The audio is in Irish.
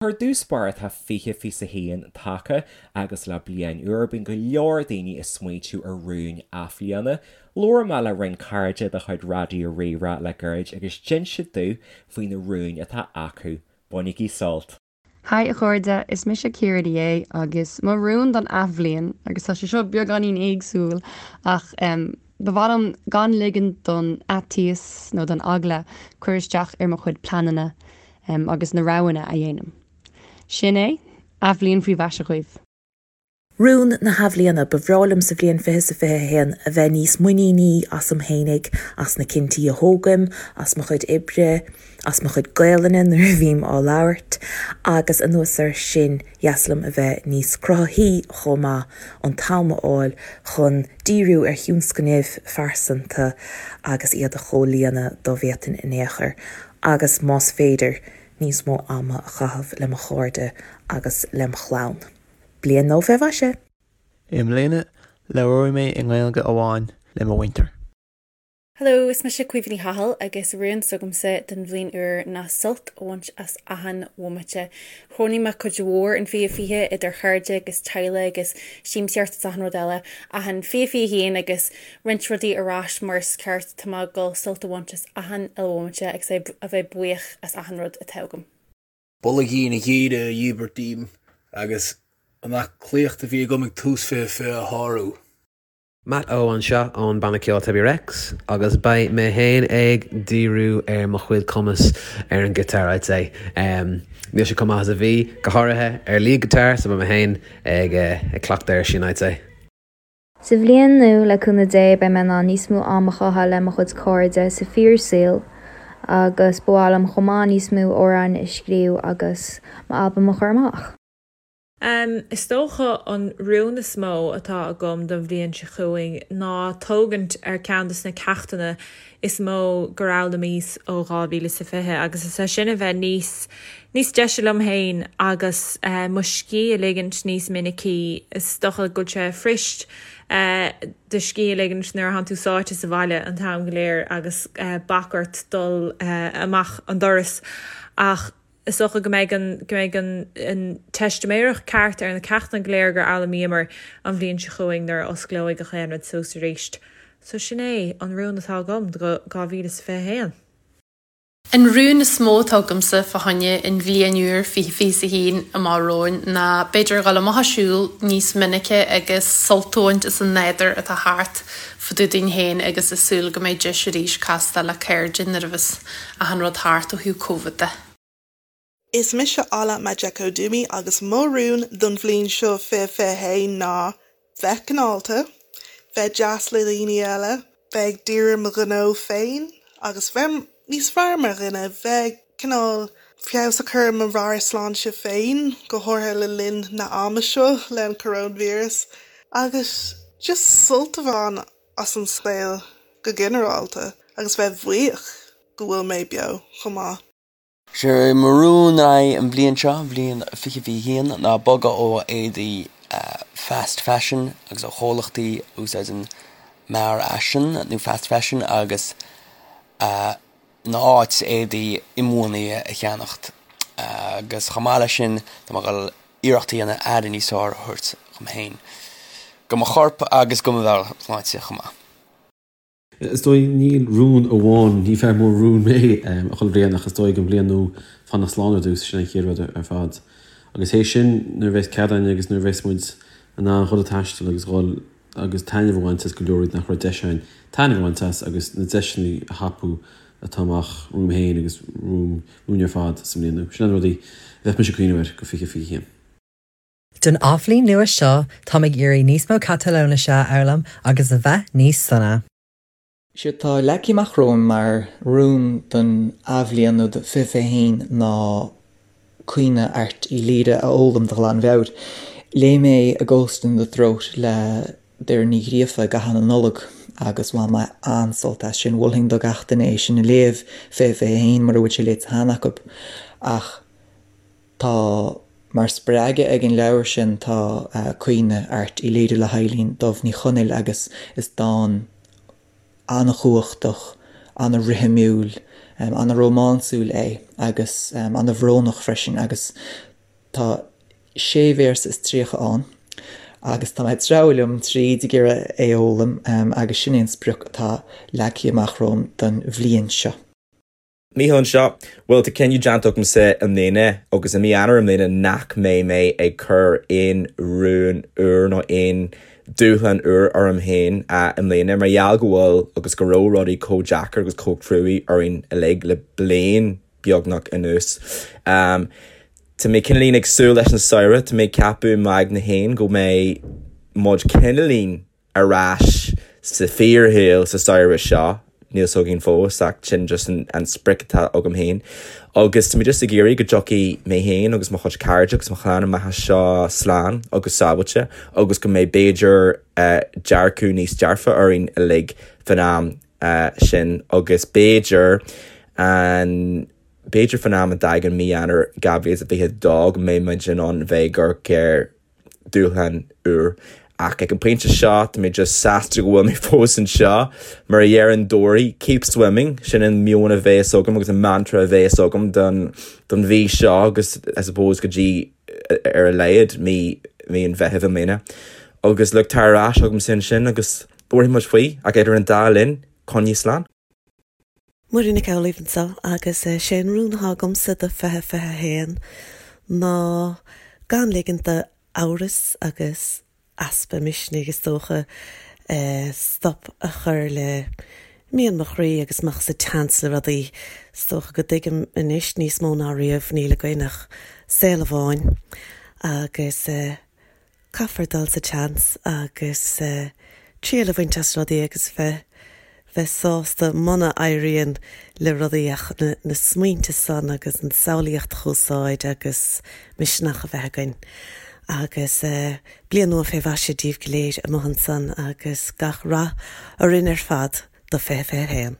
Ar dtús báire tá 2021 tagtha agus le bliain úr bíonn go leor daoine ag smaointiú ar rúin athbhliana. Labhair mé le roinnt cairde de chuid Raidió Rí-Rá le gairid agus d'inis siad domh faoi na rúin atá acu. Bainigí sult! Haigh a chairde, is mise Ciara Ní É agus mo rún don athbhliain, agus tá sé seo beagáinín éagsúil ach ba mhaith liom gan ligean don fhaitíos nó don eagla cur isteach ar mo chuid pleananna agus na roghanna a dhéanaim. Sin é, athbhliain faoi mhaise dhaoibh. Rún na hAthbhliana, Ba bhreá liom sa bhliain 2021 a bheith níos muiníní asam fhéinig, as na cinntí a thógaim, as mo chuid oibre, as mo chuid Gaelainne nuair a bhím á labhairt, agus anuas air sin, dheas liom a bheith níos cruthaithí chomh maith, an t-am a fháil chun díriú ar thionscnaimh phearsanta agus iad a chomhlíonadh dá bhféadfainn in aon chor. agus más féidir, níos mó ama a chaitheamh le mo chairde agus lem chlann. Bliain nua fé mhaise! I mbliana, labhróidh mé i nGaeilge amháin le mo mhuintir. Hello, is mise Caoimhe Ní Chathail agus rún s'agamsa don bhliain úr ná sult a bhaint as achan bhomaite. Chronaigh mé cuid mhór in 2020 idir chairde agus teaghlaigh agus siamsaíocht is achan rud eile ach in 2021 agus roinnt rudaí ar ais mar is ceart, tá mé ag dul sult a bhaint as achan uile bhomaite agus a bheith buíoch as achan rud atá agam. Boilgín ghéire a dhíbirt díom agus an aclaíocht a bhí agam ag tús 2020 a shárú. Matt O anseo ón banna ceoil Tebi Rex agus beidh mé féin ag díriú ar mo chuid cumas ar an guitar I'd say. Níl sé chomh maith is a bhí, go háirithe ar lead guitar so beidh mé féin ag cleachtadh air sin I'd say. Sa bhliain nua, le cúnamh Dé, beidh mé in ann níos mó am a chaitheamh le mo chuid cairde sa fíor-saol agus ba mhaith liom chomh maith níos mó amhráin a scríobh agus m'albam a chur amach. Is dócha an rún is mó atá agam don bhliain seo chugainn ná tógaint ar ceann de na ceachtanna is mó gur fhoghlaimíos ó 2020 agus is é sin a bheith níos níos deise liom féin agus mo scíth a ligint níos minicí. Is dócha go bhfuil sé fuirist do scíth a ligint nuair atánn tú sáite sa bhaile an t-am go léir agus bac ort dul amach an doras ach is dócha go mbeidh an go mbeidh an an teistiméireacht ceart ar na ceachtanna go léir gur fhoghlaimíomar an bhliain seo chugainn nuair a osclóidh gach aon rud suas arís. So sin é an rún atá agam do 2021. An rún is mó atá agamsa fá choinne an bhliain úr 2021 amach romhainn ná b'fhéidir dhul amach ag siúl níos minice agus sult a bhaint as an nádúr atá thart fá dtaobh dúinn féin agus ag súil go mbeidh deis arís castáil le cairde nuair a bheas achan rud thart ó thaobh Covid de. Is mise Ola Majekodunmi agus mo rún don bhliain seo 2021 ná bheith cineálta, bheith deas le daoine eile, bheith ag díriú ar mo ghnó féin agus bheith níos fearr mar dhuine, bheith cineál feabhas a chur ar mo mheabhairshláinte féin, go háirithe le linn na ama seo le an coróinvíreas, agus just sult a bhaint as an saol go ginearálta agus bheith buíoch go bhfuil mé beo chomh maith. Sé mo rún an bhliain seo, bhliain 2021, ná bogadh ó éadaí fast fashion agus ó chomhlachtaí a úsáideann mearfhaisean nó fast fashion agus ina áit éadaí inbhuanaithe a cheannacht. Agus chomh maith leis sin, tá mé ag dul iarracht a dhéanamh aire níos fearr a thabhairt dhom féin, do mo chorp agus do mo mheabhairshláinte chomh maith. Is dóigh, níl rún amháin, ní fear mór rún mé chuile bhliain ach is dóigh an bhliain nua fanacht slán ar dtús, sin an chéad rud ar fad. Agus théis sin, nuair a bheas cead againn agus nuair a bheas muid in ann dhul ag taisteal agus dhul agus taitneamh a bhaint as go leor rudaí nach raibh deis againn taitneamh a bhaint as agus na deiseanna a thapú atá amach romham féin agus romhainn ar fad sa mbliain nua. Sin na rudaí a bheadh mise ag cuimhneamh air go 2021. Don athbhliain nua seo, táim ag iarraidh níos mó Catalóinise a fhoghlaim agus a bheith níos sona. Is é atá leagtha amach romham mar rún don athbhliain nó do 2021 ná Caoineadh Airt Uí Laoghaire a fhoghlaim de ghlanmheabhair. Léigh mé A Ghost in the Throat le Doireann Ní Ghríofa i gcaitheamh na Nollag agus bhain mé an-sult as sin. Mholfainn do gach duine é sin a léamh, 2021, mura bhfuil sé léite cheana acu. Ach tá mar spreagadh ag an leabhar sin tá Caoineadh Airt Uí Laoghaire le hEibhlín Dubh Ní Chonaill agus is dán an-chumhachtach, an-rithimiúil, an-rómánsúil é agus an-bhrónach freisin agus. Tá sé véarsa is 30 ann agus tá mé ag treabhadh liom tríd ag iarraidh é a fhoghlaim agus sin é an sprioc atá leagtha amach romham don bhliain seo. Mícheál anseo. Bhuel, tá cinneadh déanta agamsa i mbliana agus i mí Eanáir i mbliana nach mbeidh mé ag cur aon rún úr nó aon dúshlán úr orm féin i mbliana mar gheall go bhfuil agus go raibh rudaí chomh deacair agus chomh cruaidh orainn uilig le bliain beagnach anuas. Tá mé cineáilín ag súil leis an samhradh, tá mé ag ceapadh i m'aigne féin go mbeidh muid cineáilín ar ais sa fíorshaol sa samhradh seo, níl 's againn fós ach sin just an sprioc atá agam féin. Agus tá mé just ag iarraidh go dtiocfaidh mé féin agus mo chuid cairde agus mo chlann amach as seo slán agus sábháilte agus go mbeidh b'fhéidir dearcadh níos dearfa orainn uilig fan am sin agus b'fhéidir an b'fhéidir fan am a dtagann mí Eanáir 2022 go mbeidh muid in ann bheith ag amharc ar dúshlán úr. Ach ag an bpointe seo, tá mé just sásta go bhfuil mé fós anseo. Mar a deireann Dory, keep swimming, sin an meon a bheas agam agus an mantra a bheas agam don don mhí seo agus I suppose go dtí ar a laghad mí mí an Mheithimh i mbliana. Agus look, tar ar ais chugamsa ansin agus labharfaidh muid faoi ach idir an dá linn, coinnigh slán. Muireann Nic Amhlaoibh anseo agus sé an rún atá agamsa do 2021 ná gan ligint d'amhras agus easpa misnigh is dócha stop a chur le mian mo chroí agus imeacht sa tseans le rudaí. Is dócha go dtuigim anois níos mó ná riamh níl againn ach saol amháin agus Caithfear dul sa tseans agus triail a bhaint as rudaí agus bheith bheith sásta muna éiríonn le rudaí ach na smaointe san agus an samhlaíocht a úsáid agus misneach a bheith againn. Agus bliain nua fé mhaise díbh go léir amuigh ansan agus gach rath orainn ar fad do 2021.